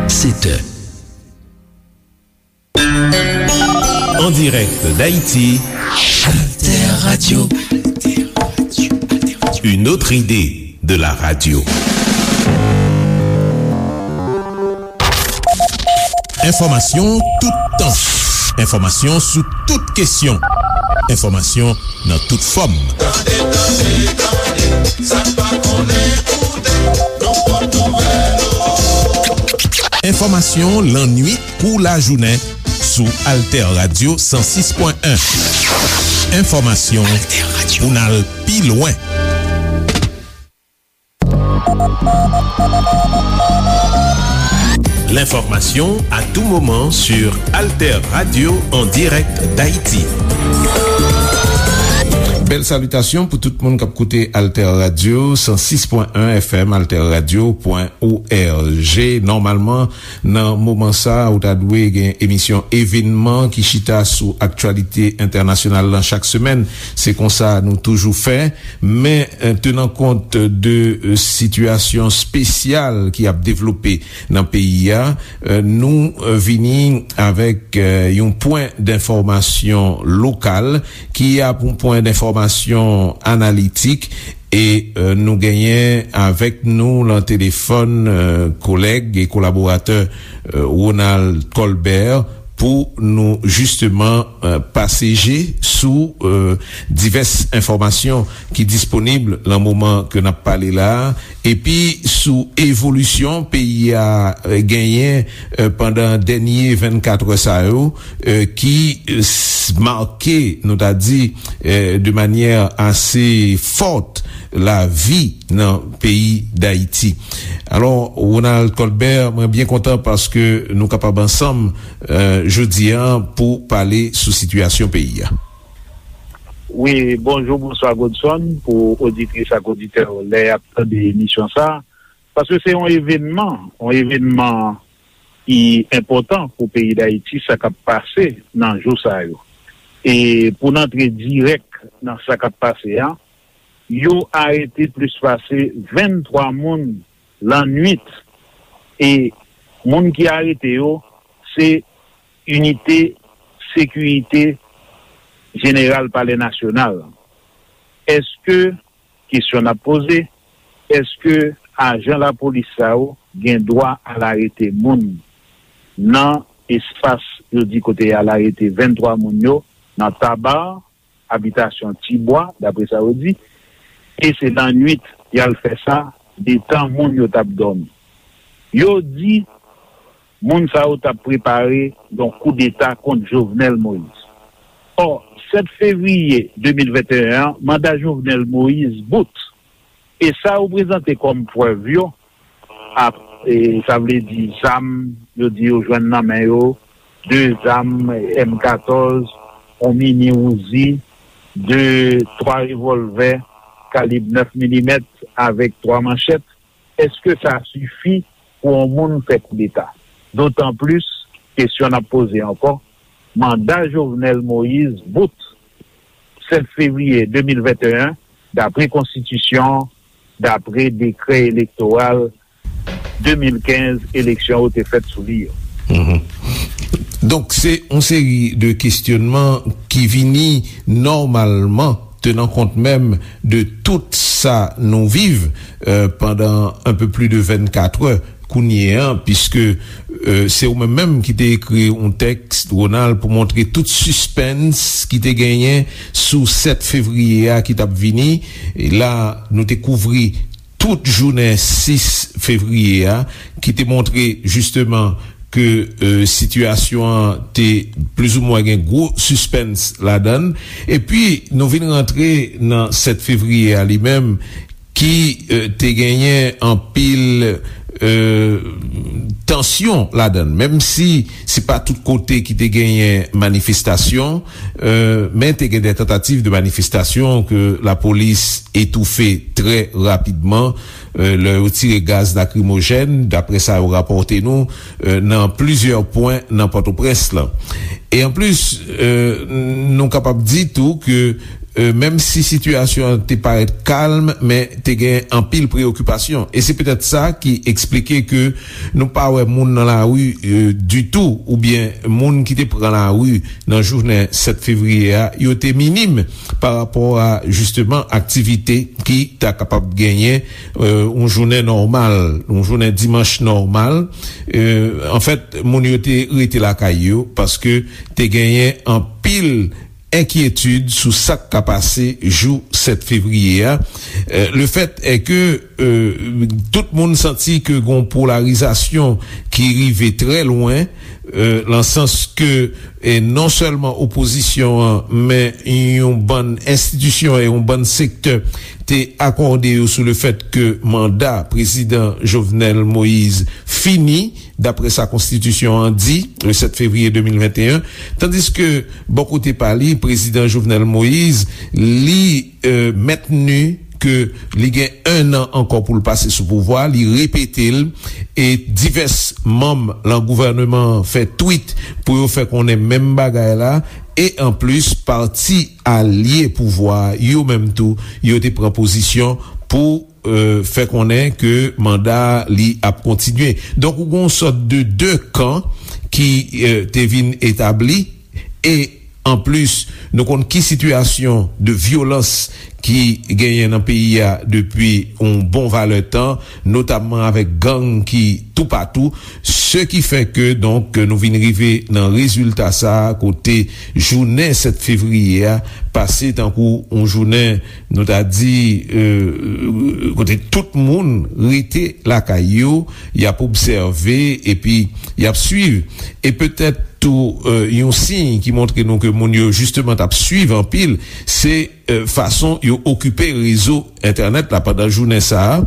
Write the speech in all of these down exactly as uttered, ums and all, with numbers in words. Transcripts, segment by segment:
Sept heures. En direct d'Haïti, Alter Radio. Une autre idée de la radio. Enfòmasyon toutan. Enfòmasyon sou tout kesyon. Enfòmasyon nan tout fòm. Tande, tande, tande, sa n pa konnen koute, nou pot nouvèl yo. Enfòmasyon lannwit kou lajounen sou Alter Radio san sis pwen en. Enfòmasyon pou n al pi lwen. L'information à tout moment sur Alter Radio en direct d'Haïti. Bèl salitasyon pou tout moun k ap koute Alter Radio san sis pwen en F M, alterradio pwen org. Nòmalman, nan moman sa a, ou ta dwe gen emisyon Evenman ki chita sou aktyalite entènasyonal lan chak semèn. Se konsa nou toujou fè. Men, eh, tenan kont de, eh, sitiyasyon espesyal ki ap devlope nan peyi a, eh, nou, eh, vini avèk, eh, yon pwen denfòmasyon lokal ki ap yon pwen denfòmasyon analitik e, eh, nou genyen avèk nou lan telefòn, eh, kolèg e kolaboratè, eh, Ronald Colbert pou nou jisteman, eh, pase je sou, eh, divès enfòmasyon ki disponib lan moman ke n ap pale la a, epi sou evolisyon peyi a, eh, genyen, eh, pandan dènye vennkat è sa yo, eh, ki, eh, s-, make, nou ta di, eh, de manyè ase fòt lavi nan peyi Dayiti. Alò, Ronald Colbert, mwen byen kontan paske nou kapab ansanm, eh, jodi a pou pale sou sitiyasyon peyi a. Wi, bonjou, bonswa Godson, pou oditris ak oditè yo lè y ap tande emisyon sa a. Paske se yon evènman, yon evènman ki enpòtan pou peyi Dayiti, sa k ap pase nan jou sa yo. E pou n antre dirèk nan sa k ap pase a, yo arete plis pase venntwa moun lannwit. E moun ki arete yo, se inite sekirite jeneral Palè Nasyonal. Èske, kesyon n ap poze, èske ajan lapolis sa yo gen dwa al arete moun nan espas yo di kote y al arete venntwa moun yo, nan Taba, abitasyon Tibwa, daprè sa yo di, e se lannwit y al fè sa, detan moun yo t ap dòmi. Yo di moun sa yo t ap prepare yon koudeta kont Jovenel Moïse. Ò, sèt fevriye de mil venteyen an, manda Jovenel Moïse bout. E sa yo prezante kòm prèv yo, ap, e, sa vle di zam, yo di yo jwenn nan men yo, de zam M katòz, yon mini Uzi, de, twa revòlvè kalib nèf milimèt avèk twa manchèt. Èske sa sifi pou yon moun fè koudeta? Dotan plis, kesyon n ap poze ankò, manda Jovenel Moïse bout sèt fevriye de mil venteyen, daprè konstitisyon, daprè dekrè elektoral de mil kenz, eleksyon yo te fèt sou li yo. Mhm. Donk, se yon seri de kesyònman ki vini nòmalman, tenan kont menm de tout sa nou viv, euh, pandan un peu plus de vennkat è kounye a, piske, euh, se ou menm menm ki te ekri yon tèks, Ronald, pou montre tout sispens ki te genyen sou sèt fevriye a ki t ap vini. E la, nou te kouvri tout jounen sis fevriye a, ki te montre jisteman ke, euh, sitiyasyon an te plizoumwen gen gwo sispens ladan l. Epi, nou vin rantre nan sèt fevriye a li menm, ki, euh, te genyen anpil, euh, tansyon ladan l. Menm si se pa tout kote ki te genyen manifestasyon, euh, men te gen de tantativ de manifestasyon ke lapolis etoufe trè rapidman, euh, lè yo tire gaz lakrimojèn, daprè sa yo rapòte nou, euh, nan plizyè pwen nan Pòtoprens lan. E anplis, euh, nou kapab di tou ke, e, menm si sitiyasyon an te parèt kalm, men te gen anpil preyokipasyon. E se petèt sa ki eksplike ke nou pa wè moun nan lari, e, ditou, oubyen moun ki te pran lari nan jounen sèt fevriye a, yo te minim pa rapò a, jisteman, aktivite ki ta kapab genyen, e, yon jounen nòmal, yon jounen dimanch nòmal. E, anfèt, moun yo te rete lakay yo paske te genyen anpil enkyetid sou sa k ka pase jou sèt fevriye a. E, le fèt è ke, e, tout moun santi ke gon polarizasyon ki rive trè lwen, e, nan sans ke, e, non sèlman opozisyon an, men yon bann enstitisyon e yon bann sektè te akòde yo sou le fèt ke manda prezidan Jovenel Moïse fini, dapre sa konstitisyon an di, le sèt fevriye de mil venteyen, tandiske bò kote pa li, prezidan Jovenel Moïse, li, e, mentni ke li gen en an ankò pou l pase sou pouvwa, li repete l, e divès manm lan gouvèneman an fè twit pou yo fè konnen menm bagay la, e anplis, pati alye pouvwa a, yo menm tou, yo te pran pozisyon pou, e, fè konnen ke manda li ap kontinye. Donk, ou gen yon sòt de de kan ki, e, te vin etabli, e anplis, nou konn ki sitiyasyon de vyolans ki genyen nan peyi a depi yon bon valè tan, notamman avèk gang ki toupatou, se ki fè ke, donk, nou vin rive nan rezilta sa a, kote jounen sèt fevriye a pase tankou yon jounen, nou ta di, e, kote tout moun rete lakay yo, y ap obsève, epi y ap swiv. E petèt tou, e, yon siy ki montre nou ke moun yo jisteman t ap swiv anpil, se, e, fason yo okipe rezo entènèt la pandan jounen sa a,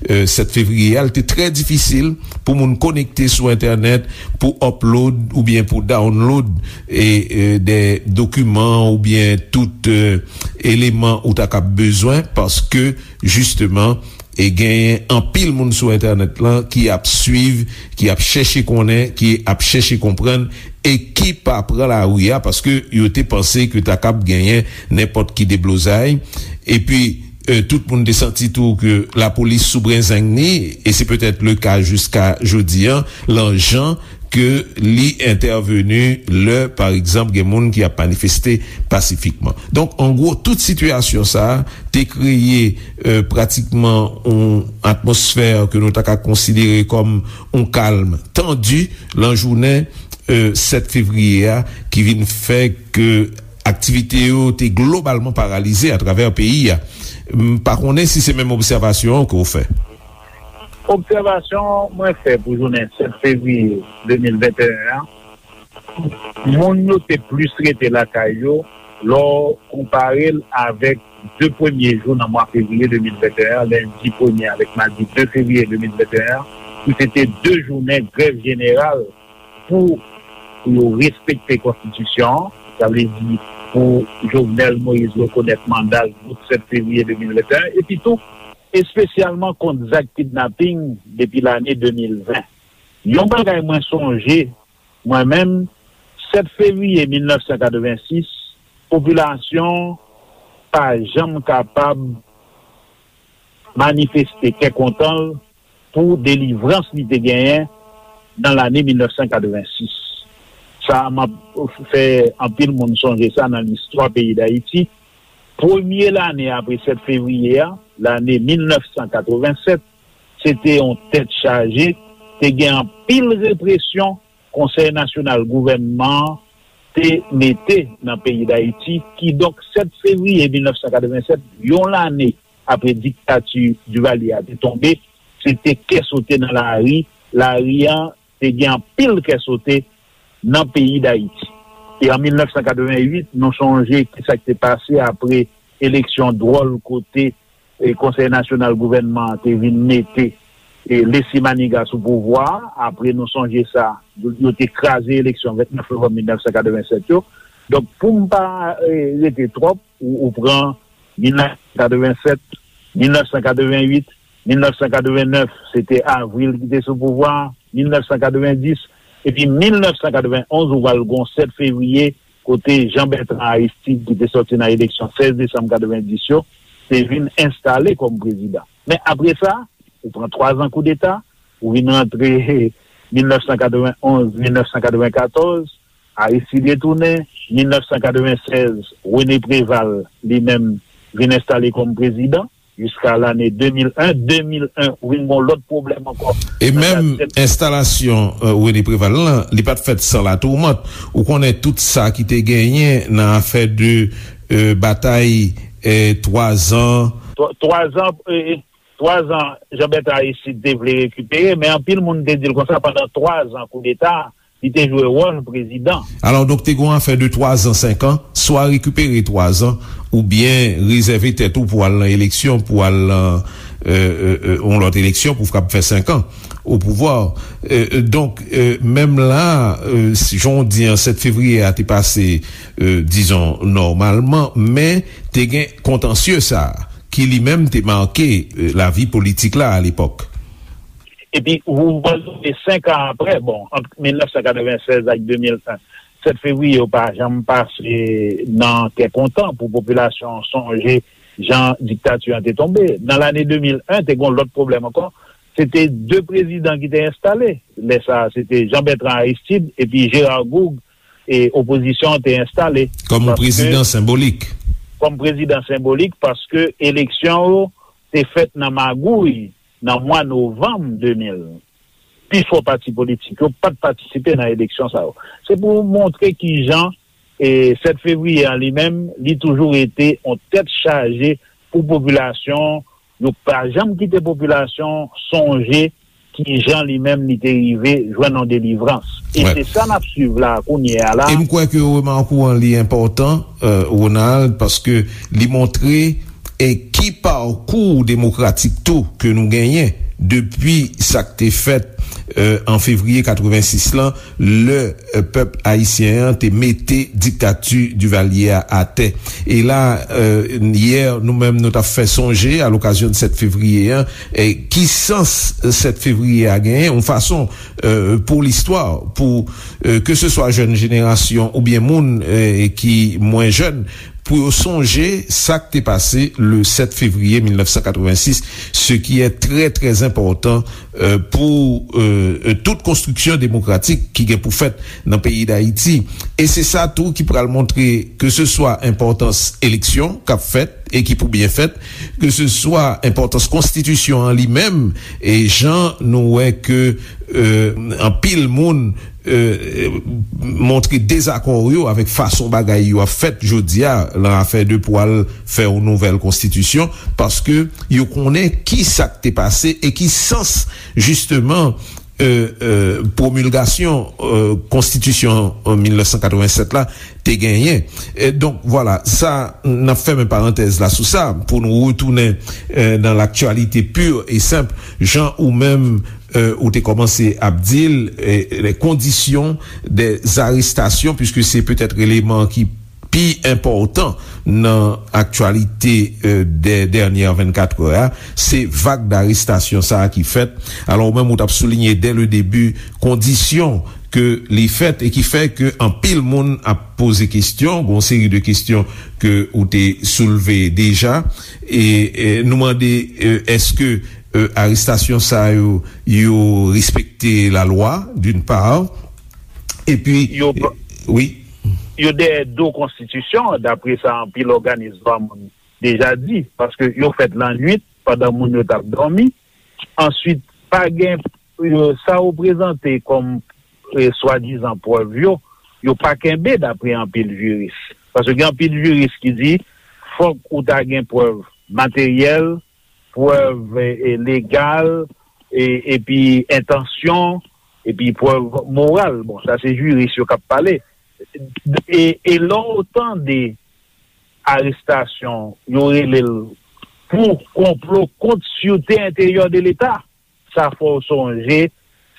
e, sèt fevriye a. Li te trè difisil pou moun konekte sou entènèt, pou upload oubyen pou download, e, e, de dokiman oubyen tout, e, eleman ou ta kab bezwen, paske, jisteman, e genyen anpil moun sou entènèt lan ki ap swiv, ki ap chèche konnen, ki ap chèche konprann, e ki pa pran lari a paske yo te panse ke ta kab genyen nenpòt ki deblozay. Epi, e, tout moun te santi tou ke lapolis sou brenzeng ni, e se petèt le ka jiska jodi an, lan jan ke li entèveni lè, pa egzanp, gen moun ki ap manifeste pasifikman. Donk, an gwo, tout sitiyasyon sa a te kreye, e, pratikman yon atmosfè ke nou ta ka konsidere kòm yon kalm tandi lan jounen, e, sèt fevriye a, ki vin fè ke aktivite yo te globalman paralize atravè peyi a. M pa konnen si se menm obsèvasyon an ke w fè. Obsèvasyon mwen fè pou jounen sèt fevriye de mil venteyen an, moun yo te plis rete lakay yo lè w konpare l avèk de premye jou nan mwa fevriye de mil venteyen an, lendi premye avèk madi de fevriye de mil venteyen an, ki se te de jounen grèv jeneral pou yo respekte konstitisyon an, sa vle di pou Jovenel Moïse rekonèt manda l bout sèt fevriye de mil venteyen, epi tou, espesyalman kont zak kidnaping depi lane de mil ven. Yon bagay mwen sonje, mwen menm, sèt fevriye mil nèf san katrevensis, popilasyon pa janm kapab manifeste kè kontan l pou delivrans li te genyen nan lane mil nèf san katrevensis. Sa, m ap fè anpil moun sonje sa nan listwa peyi Dayiti. Premye lane apre sèt fevriye a, lane mil nèf san katrevensèt, se te yon tèt chaje, te gen anpil represyon Konsèy Nasyonal Gouvènman an te mete nan peyi Dayiti. Kidonk, sèt fevriye mil nèf san katrevensèt, yon lane apre diktati Duvalier a te tonbe, se te kè sote nan lari. Lari an te gen anpil kè sote nan peyi Dayiti. E an mil nèf san katreven uit, nou sonje ki sa k te pase apre eleksyon dwòl kote, e, Konsèy Nasyonal Gouvènman an te vin mete, e, Leslie Manigat sou pouvwa a. Apre, nou sonje sa, yo, yo te kraze eleksyon vennèf novanm mil nèf san katreven sèt yo. Donk, pou m pa, e, rete twòp, ou, ou pran mil nèf san katreven sèt, mil nèf san katreven uit, mil nèf san katreven nèf, se te Avril ki te sou pouvwa a, mil nèf san katreven dis, epi mil nèf san katreven onz, ou pral gen sèt fevriye kote Jean Bertrand Aristide, ki te sòti nan eleksyon sèz desanm katrevenndis yo, te vin enstale kòm prezidan. Men apre sa, ou pran twa zan koudeta, ou vin rantre mil nèf san katrevenn onz, mil nèf san katrevenn katòz, Aristide retounen, mil nèf san katrevenn sèz, René Préval, li menm, vin enstale kòm prezidan. Jiska lane de mil en, de mil en, ou vin gen yon lòt pwoblèm ankò. E menm enstalasyon René Préval lan, li pa t fèt san latoumant. Ou konnen tout sa ki te genyen nan afè de batay twa zan. Twa zan, twa zan, Jean Bertrand Aristide te vle rekipere, men anpil moun te di l konsa, pandan twa zan koudeta, li te jwe wòl prezidan. Alò, donk, te gen yon afè de twa zan, senk an, swa rekipere twa zan, oubyen rezève tèt ou pou al nan eleksyon, pou al nan yon lòt eleksyon, pou kab fè senk an o pouvwa. Donk, menm la, jan w di an, sèt fevriye a te pase, dizon, nòmalman, men te gen kontansye sa a, ki li menm te make lavi politik la alepòk. Epi, ou pral sonje senk an apre, bon, ant mil nèf san katrevenn sèz ak de mil en, sèt fevriye yo pa janm pase nan kè kontan pou popilasyon an sonje jan diktati an te tonbe. Nan lane de mil en, te gen yon lòt pwoblèm ankò. Se te de prezidan ki te enstale. Lè sa a, se te Jean Bertrand Aristide epi Gérard Gourgue, e opozisyon an te enstale. Kòm yon prezidan senbolik. Kòm prezidan senbolik, paske eleksyon yo te fèt nan magouy nan mwa novanm de mil. Pifò pati politik yo pa t patisipe nan eleksyon sa yo. Se pou montre kijan, e, sèt fevriye an li menm, li toujou rete yon tèt chaje pou popilasyon. Yo pa janm kite popilasyon sonje kijan li menm li te rive jwenn yon delivrans. E se sa n ap swiv la, kounye a la. E m kwè ke remake w an li enpòtan, Ronald, paske li montre e ki pakou demokratik tou ke nou genyen depi sa k te fèt an fevriye katrevensis lan, lè pèp ayisyen an te mete diktati Divalye a atè. E la, yè, nou menm, nou t ap fè sonje, a lokazyon de sèt fevriye an, e ki sans sèt fevriye a genyen, yon fason, pou listwa, pou, ke se swa jèn jenerasyon oubyen moun ki mwen jèn, pou yo sonje sa k te pase le sèt fevriye mil nèf san katrevensis, ce qui est très, très important, pou tout konstriksyon demokratik ki gen pou fèt nan peyi Dayiti. E se sa tou ki pral montre ke se swa enpòtans eleksyon k ap fèt e ki pou byen fèt, ke se swa enpòtans konstitisyon an li menm, e jan nou wè ke anpil moun montre dezakò yo avèk fason bagay yo ap fèt jodi a nan afè de pou al fè yon nouvèl konstitisyon, paske yo konnen ki sa k te pase e ki sans, jisteman, pwomilgasyon konstitisyon mil nèf san katrevennsèt la te genyen. Donk, vwala, sa, n ap fèmen parantèz la sou sa, pou nou retounen nan l'actualité pure et simple, jan ou menm ou te kòmanse ap di l, les conditions des arrestations, puisque se petèt eleman ki pi enpòtan nan aktyalite dè dènyè vennkat è a, se vag darestasyon sa a ki fèt. Alò, ou menm, ou t ap soulinye dè le debi kondisyon ke li fèt e ki fè ke anpil moun ap poze kesyon, gon seri de kesyon ke ou te soulve deja, e, e nou mande, e, èske, e, arestasyon sa yo, yo respekte lalwa, d'une part, epi, yo, wi. Yo dèyè do konstitisyon, dapre sa anpil òganis dwa moun deja di, paske yo fèt lannwit, pandan moun yo t ap dòmi. Answit, pa gen, yo, sa yo prezante kòm, e, swadizan prèv yo, yo pa kenbe dapre anpil jiris. Paske gen anpil jiris ki di, fòk ou ta gen prèv materyèl, prèv, e, e, legal, e, epi entansyon, epi prèv moral. Bon, sa se jiris yo k ap pale. E, e lè w tande arestasyon, yo rele l pou konplo kont sirte enteryè de Leta. Sa fè w sonje,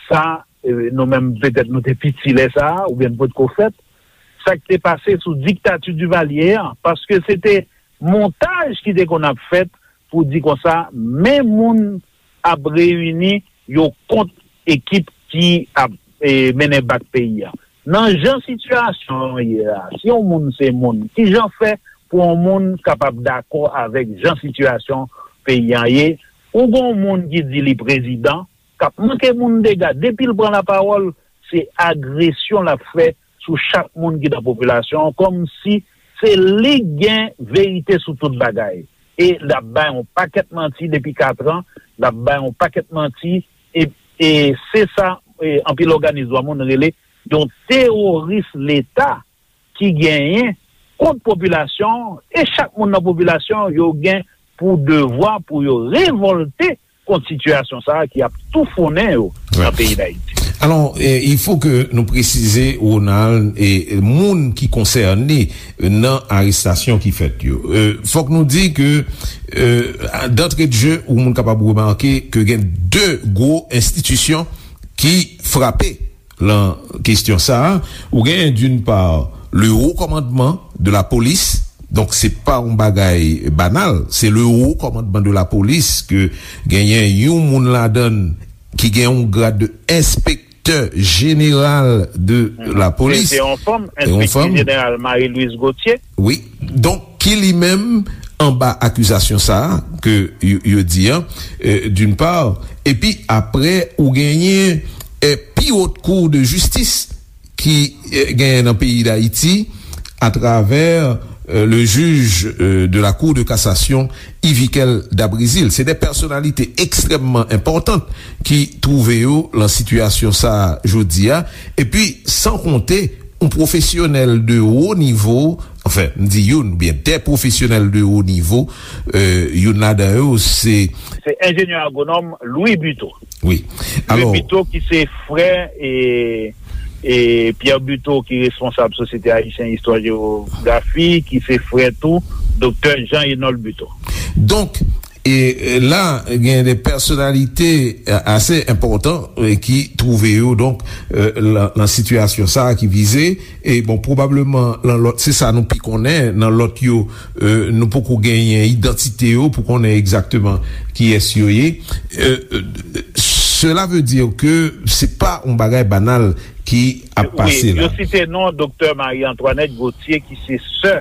sa, e, nou menm, petèt nou te piti lè sa a, oubyen n potko fèt, sa k te pase sou diktati Divalye an, paske se te montaj ki te konn ap fèt pou di konsa, men moun ap reyini yo kont ekip ki ap, e, mennen bak peyi a. Nan jan sitiyasyon an ye a, si yon moun se moun, ki jan fè pou yon moun kapab dakò avèk jan sitiyasyon peyi an ye? Ou gen yon moun ki di li prezidan, k ap manke moun dega, depi l pran lapawòl, se agresyon l ap fè sou chak moun ki nan popilasyon an, kòmsi se li k gen verite sou tout bagay. E l ap bay yon pakèt manti depi katran, l ap bay yon pakèt manti, e, e se sa, e, anpil òganis dwa moun rele yon teworis Leta ki genyen kont popilasyon an, e chak moun nan popilasyon an, yo gen pou devwa pou yo revòlte kont sitiyasyon sa a ki ap toufonnen yo nan peyi Dayiti. Alò, eh, il faut que nou presize, Ronald, e moun ki konsène nan arestasyon ki fèt yo. Eh, fòk nou di ke, eh, d'entrée de jeu, ou moun kapab remake ke gen de gwo enstitisyon ki frape lan kestyon sa a. Ou genyen, d'une part, le haut commandement de la police. Donk, se pa yon bagay banal. Se le haut commandement de la police ke genyen yon moun ladan l ki gen yon grad de enspektè jeneral de la police. Se yon fanm, enspektè jeneral Marie Louise Gauthier. Wi. Donk, ki li menm anba akizasyon sa a ke yo, yo di an, d'une part, epi apre ou genyen, eh, pi wot kou de jistis ki, eh, genyen nan peyi Dayiti atravè, eh, le juge, eh, de la Cour de cassation, Yviquel Dabrizil. Se de pèsonalite ekstrèmman enpòtan ki twouve yo lan sitiyasyon sa a jodi a. Epi, san konte yon pwofesyonèl de wo nivo, anfen, m di youn, oubyen de pwofesyonèl de wo nivo, eh, youn ladan yo, se. Se enjenyè agwonòm Louis Buteau. Wi. Alò, Louis Buteau ki se frè e, e Pierre Buteau ki responsab Sosyete Ayisyen Istwa Jewografi, ki se frè tou Doktè Jean Enold Buteau. Donk, e, e la, gen de pèsonalite, e, ase enpòtan, e, ki twouve yo, donk, e, lan, lan sitiyasyon sa a ki vize, e bon, pwobableman, lan lòt, se sa nou pi konnen, nan lòt yo, e, nou poko genyen idantite yo pou konnen egzakteman kiyès yo ye. E, e, cela veut dire que se pa yon bagay banal ki ap pase la. Wi, yo site non Doktè Marie Antoinette Gauthier ki se sè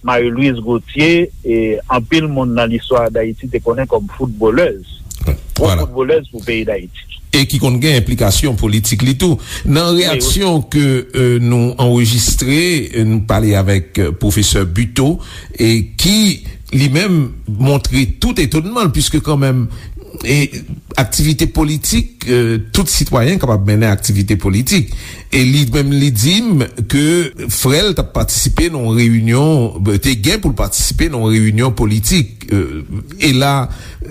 Marie Louise Gauthier, e anpil moun nan listwa Dayiti te konnen kòm foutbolèz. Gwo foutbolèz pou peyi Dayiti. E ki konn gen enplikasyon politik li tou. Nan reyaksyon ke, e, nou anrejistre, e, nou pale avèk, e, pwofesè Buteau, e ki li menm montre tout etonnman l, piske kanmenm, e, aktivite politik, e, tout sitwayen kapab mennen aktivite politik. E li menm li di m ke frè l t ap patisipe nan yon reyinyon, te gen pou l patisipe nan yon reyinyon politik. E, e la,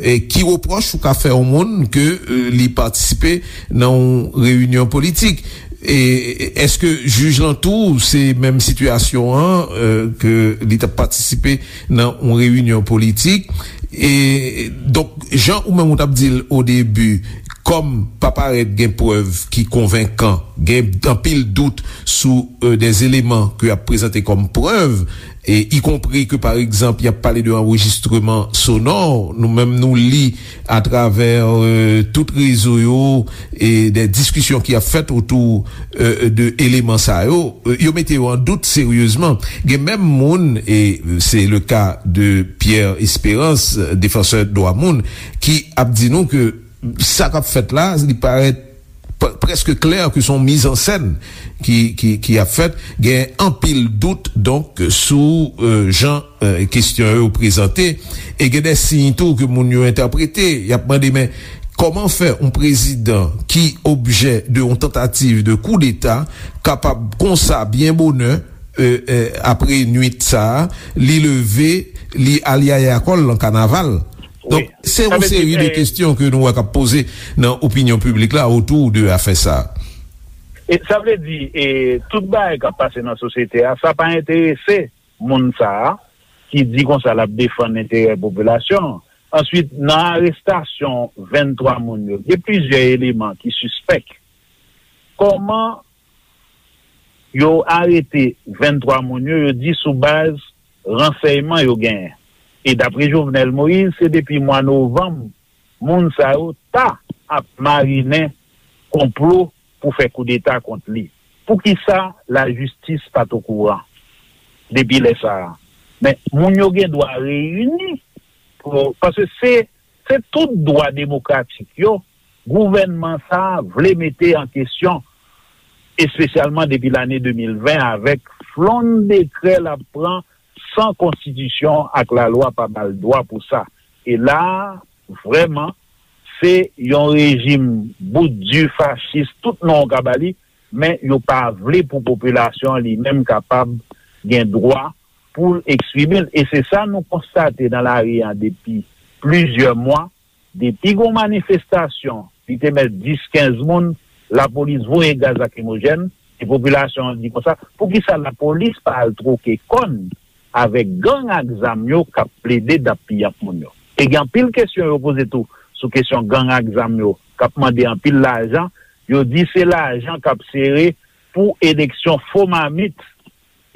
e, ki repwòch ou ka fè yon moun ke, e, li patisipe nan yon reyinyon politik? E èske jij lan tou se menm sitiyasyon an, e, ke li t ap patisipe nan yon reyinyon politik? E donk, jan ou menm ou t ap di l o debi, kòm pa parèt gen prèv ki konvenkan, gen anpil dout sou, e, de eleman ke y ap prezante kòm prèv, e ikonpri ke, pa egzanp, y ap pale de anrejistreman sonò, nou menm nou li atravè, e, tout rezo yo, e de diskisyon ki ap fèt otou, e, de eleman sa yo, e, yo mete yo an dout seryezman. Gen menm moun, e se le ka de Pierre Espérance, defansè dwa moun, ki ap di nou ke sa k ap fèt la, li parèt p-, prèske klè ke se yon mizansèn ki, ki, ki ap fèt. Gen anpil dout, donk, sou, e, jan, e, kestyon yo prezante. E gen de siy tou ke moun yo entèprete. Y ap mande, men, kòman fè yon prezidan ki objè de yon tantativ de koudeta kapab konsa byen bonè, e, e, apre nwit sa a, li leve, li al yaya kò l lan kanaval? Donk, se yon seri de kestyon ke nou wè k ap poze nan opinyon piblik la otou de afè sa a. E sa vle di, e, tout bagay k ap pase nan sosyete a, sa pa enterese moun sa a ki di konsa l ap defann enterè popilasyon an. Answit, nan arestasyon venntwa moun yo, gen plizyè eleman ki sispèk. Kòman yo arete venntwa moun yo, yo di sou baz ransèyman yo genyen. E dapre Jovenel Moïse, se depi mwa novanm, moun sa yo ta ap marinen konplo pou fè koudeta kont li. Poukisa lajistis pa t okouran depi lè sa a? Men, moun yo gen dwa reyini, pou, paske se, se tout dwa demokratik yo, gouvènman sa a vle mete an kesyon, espesyalman depi lane de mil ven, avèk flonn dekrè l ap pran san konstitisyon ak lalwa pa ba l dwa pou sa. E la a, vrèman, se yon rejim bout di, fachis, tout non w ka ba li, men yo pa vle pou popilasyon an li menm kapab gen dwa pou l eksprime l. E se sa nou konstate nan lari a depi plizyè mwa. Depi gon manifestasyon, li te mèt dis, kenz moun, lapolis voye gaz lakrimojèn, e popilasyon an di konsa, poukisa lapolis pa al twoke kòn avèk gang ak zam yo k ap plede dappiyanp moun yo? E gen anpil kesyon yo poze tou sou kesyon gang ak zam yo k ap mande anpil lajan. Yo di se lajan k ap sere pou eleksyon fo mamit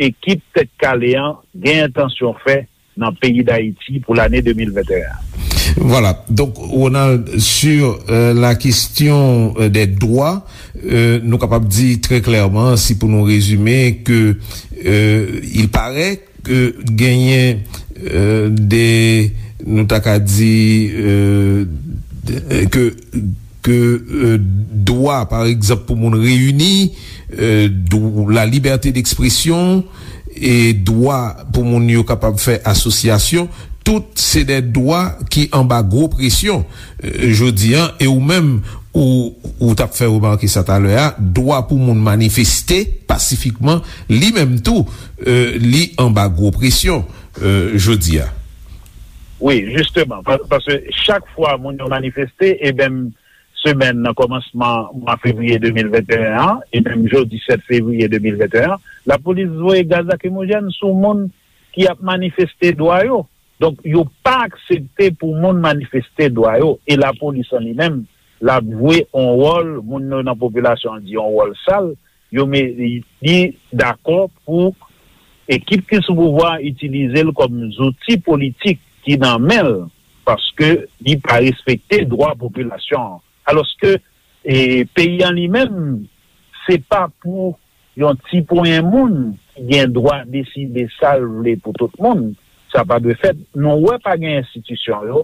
ekip Tèt Kale an gen entansyon fè nan peyi Dayiti pou lane de mil venteyen an. Vwala. Donk, Ronald, sur euh, la question euh, des droits, euh, nou kapab di trè klèman, si pou nou rezime, ke euh, il paraît ke genyen euh, de, nou ta ka di, euh, de- ke ke euh, dwa, pa egzanp, pou moun reyini, euh, dw- la libète dekspresyon, e dwa pou moun yo kapab fè asosyasyon, tout se de dwa ki anba gwo presyon. Euh, jodi an, e ou menm, ou, ou t ap fè remake sa talè a, dwa pou moun manifeste pasifikman, li menm tou, euh, li anba gwo presyon, euh, jodi a. Wi, jisteman, pa- paske chak fwa moun yo manifeste, e menm semèn nan kòmansman mwa fevriye de mil venteyen an, e menm jodi sèt fevriye de mil venteyen an, lapolis voye gaz lakrimojèn sou moun ki ap manifeste dwa yo. Donk, yo pa aksepte pou moun manifeste dwa yo. E lapolis an li menm, l ap jwe yon wòl, moun yo nan popilasyon an di yon wòl sal, yo me- li dakò pou ekip ki sou pouvwa a itilize l kòm zouti politik ki nan men l, paske li pa respekte dwa popilasyon an. Alòske e, peyi an li menm, se pa pou yon ti ponyen moun ki gen dwa deside sa l vle pou tout moun. Sa pa dwe fèt. Nou wè pa gen enstitisyon yo,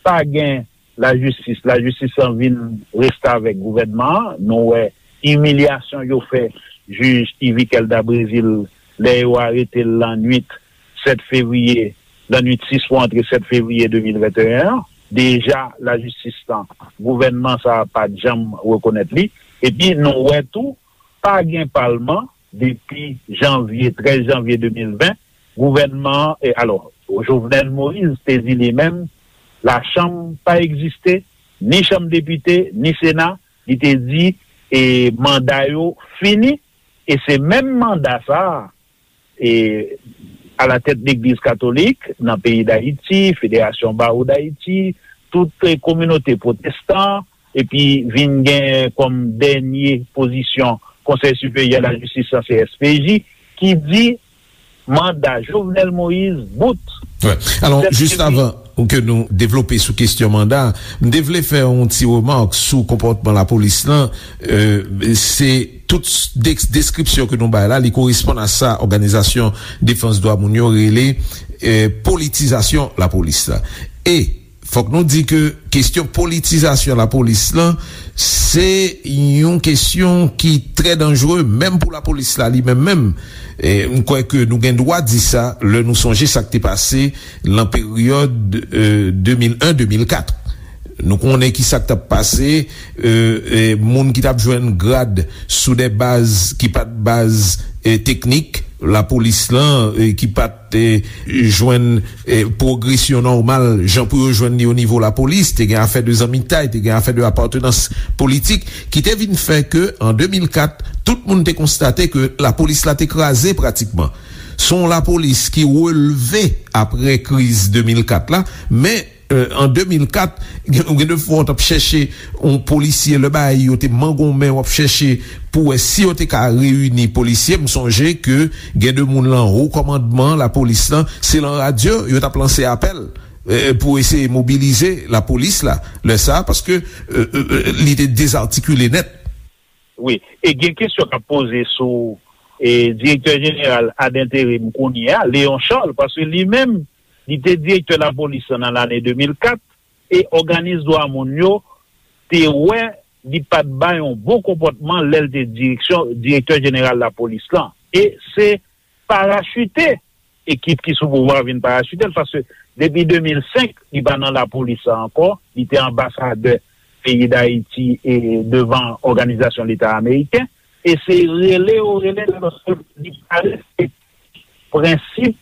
pa gen lajistis. Lajistis lan vin restavèk gouvènman an. Nou wè imilyasyon yo fè jij Yvick Elda Brésil lè yo arete l lannwit sèt fevriye, lannwit sis pou antre sèt fevriye de mil venteyen an. Deja, lajistis lan, gouvènman sa a pa t janm rekonèt li. Epi, nou wè tou, pa gen palman depi janvye, trèz janvye de mil ven. Gouvènman an, e, alò, Jovenel Moïse te di li menm, lachanm pa egziste, ni chanm depite, ni sena, li te di, e, manda yo fini, e se menm manda sa a, e, alatèt legliz katolik nan peyi Dayiti, Federasyon Bawo Dayiti, tout, e, kominote pwotestan, epi vin gen kòm dènye pozisyon Konsèy Siperyè Lajistis lan, C S P J, ki di manda Jovenel Moïse bout. Wè. Alò, jis avan ke nou devlope sou kesyon manda, m te vle fè yon ti remak sou konpòtman lapolis lan. Euh, se tout s- deks- deskripsyon ke nou bay la, li koresponn a sa Òganizasyon Defans Dwa Moun yo rele euh, politizasyon lapolis la. E fòk nou di ke kesyon politizasyon lapolis lan, se yon kesyon ki trè danjere, menm pou lapolis la li menm menm. E m kwè ke nou gen dwa di sa lè nou sonje sa k te pase lan peryòd euh, de mil en de mil kat. Nou konnen ki sa k t ap pase, euh, euh, moun ki t ap jwenn grad sou de baz ki pa t baz euh, teknik, lapolis lan, euh, ki pa t te jwenn eh, pwogresyon nòmal jan pou yo jwenn li o nivo lapolis, te gen afè de zanmitay, te gen afè de apatnans politik, ki te vin fè ke an de mil kat, tout moun te konstate ke lapolis la te kraze pratikman. Se yon lapolis ki relve apre kriz de mil kat la, men euh, an de mil kat, gen, gen de fwa w t ap chèche yon polisye, lè bagay yo te mangonmen, w ap chèche pou wè si yo te ka reyini polisye. M sonje ke gen de moun lan wo kòmandman lapolis lan, se lan radyo yo t ap lanse apèl euh, pou eseye mobilize lapolis la, lè sa a, paske euh, euh, euh, li te dezatikile nèt. Wi, e gen kesyon k ap poze sou e, direktè jeneral ad interim kounye a, Léon Charles, paske li menm, li te direktè lapolis lan nan lane de mil kat, e òganis dwa moun yo te wè li pa t bay yon bon konpòtman lè l te direksyon, direktè jeneral lapolis lan. E se parachite ekip ki sou pouvwa vin parachite l, paske depi de mil senk, li pa nan lapolis la ankò, li te anbasadè peyi Dayiti e devan Òganizasyon Leta Ameriken, e se rele yo rele l, paske li pa respekte prensip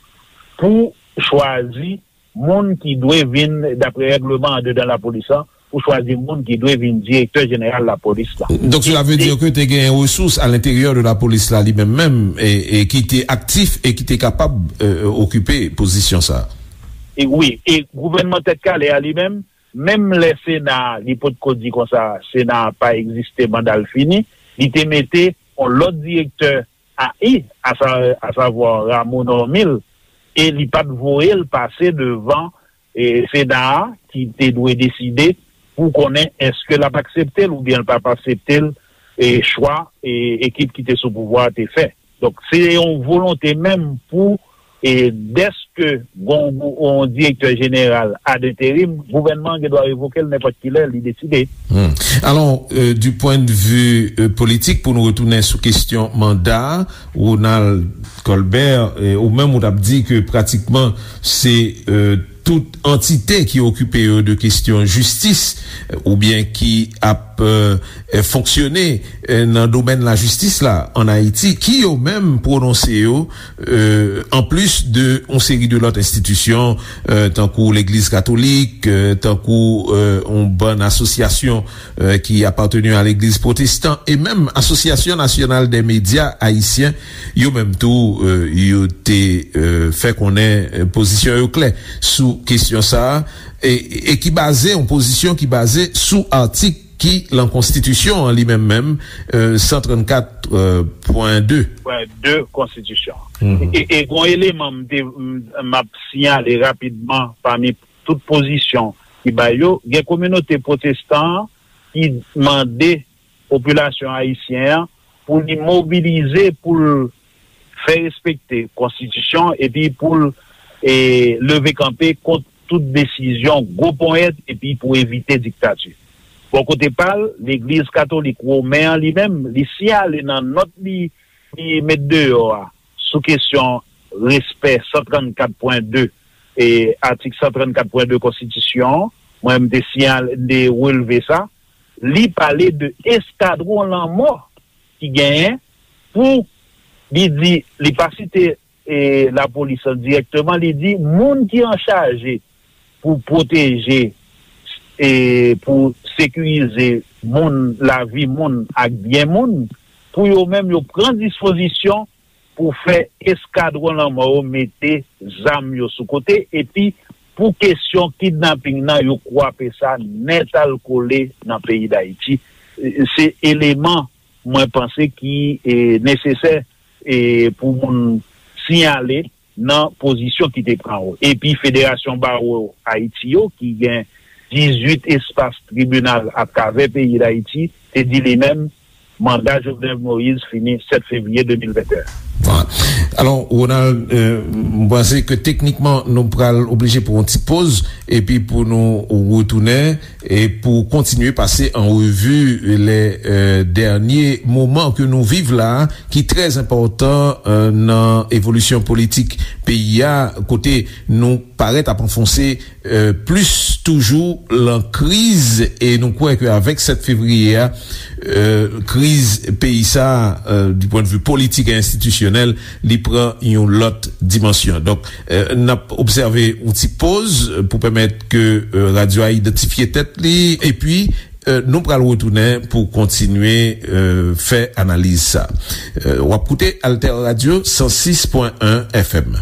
pou chwazi moun ki dwe vin, daprè règleman andedan lapolis la, pou chwazi moun ki dwe vin direktè jeneral lapolis la. Donk, cela veut dire que te gen resous à l'intérieur de la police la, li menm menm, e, e ki te aktif e ki te kapab, euh, okipe pozisyon sa. E wi, e gouvènman Tèt Kale a li menm, menm lè Sena a, li potko di konsa, Sena a pa egziste, manda l fini, li te mete yon lòt direktè a i, a sa, a savwa Rameau Normil, e li pa t voye l pase devan, e, Sena a, ki te dwe deside pou konnen èske l ap aksepte l oubyen l p ap aksepte l, e, chwa, e, ekip ki te sou pouvwa a te fè. Donk, se yon volonte menm pou, e, dèske gon, gon direktè jeneral ad interim, gouvènman an gen dwa revoke l nenpòt ki lè li deside. Hmm. Alors, euh, du point de vue, euh, politik, pou nou retounen sou kesyon manda, Ronald Colbert, euh, ou menm ou t ap di ke pratikman se, euh, tout antite ki okipe yo de kesyon jistis, euh, oubyen ki ap, euh, fonksyone, euh, nan domèn lajistis la ann Ayiti, ki yo menm pwononse yo, euh, anplis de yon seri de lòt enstitisyon, euh, tankou Legliz Katolik, euh, tankou, euh, yon bann asosyasyon, euh, ki apateni a Legliz Pwotestan, e menm Asosyasyon Nasyonal dè Medya Ayisyen, yo menm tou, euh, yo te, euh, fè konnen, euh, pozisyon yo klè sou kesyon sa a, e, e ki baze, yon pozisyon ki baze sou atik ki lan konstitisyon an li menm menm, euh, san trannkat, euh, pwen de. Pwen de konstitisyon an. Mhm. E, e gon eleman m te, m, m ap siyale rapidman pami tout pozisyon ki bay yo, gen kominote pwotestan an ki mande popilasyon ayisyen an pou li mobilize, pou l fè respekte konstitisyon, epi pou l, e, leve kanpe kont tout desizyon gwo ponyèt, epi pou evite diktati. Bò kote pa l, Legliz Katolik Women an li menm, li siyale nan nòt li, li met deyò a sou kesyon respè san trannkat pwen de, e, atik san trannkat pwen de konstitisyon an, mwen m te siyale, m te relve sa, li pale de eskadwon lanmò ki genyen pou, li di, li pa site, e, lapolis lan dirèkteman, li di moun ki anchaje pou pwoteje e pou sekirize moun, lavi moun ak byen moun, pou yo menm yo pran dispozisyon pou fè eskadwon lanmò yo mete zam yo sou kote, epi pou kesyon kidnaping nan, yo kwape sa nètalkole nan peyi Dayiti. Se eleman mwen panse ki, e, nesesè, e, pou moun siyale nan pozisyon ki te pran yo. Epi Federasyon Bawo Ayiti yo, ki gen dizuit espas tribinal atravè peyi Dayiti, te di li menm, manda Jovenel Moïse fini sèt fevriye de mil venteyen. Bon. Alò, Ronald, euh, m panse ke teknikman nou pral oblije pran yon ti poz, epi pou nou retounen, e pou kontinye pase an revi lè, euh, dènye moman ke nou viv la, ki trè enpòtan, euh, nan evolisyon politik peyi a, kote nou parèt ap anfonse, euh, plis toujou lan kriz, e nou kwè ke avèk sèt fevriye a, euh, kriz peyi sa, euh, du point de vue politique et institutionnel, li pran yon lòt dimansyon. Donk, euh, n ap obsève yon ti poz, euh, pou pèmèt ke, euh, radyo a idantifye tèt li, epi, euh, nou pral retounen pou kontinye, euh, fè analiz sa. Euh, w ap koute Alter Radio san sis pwen en F M.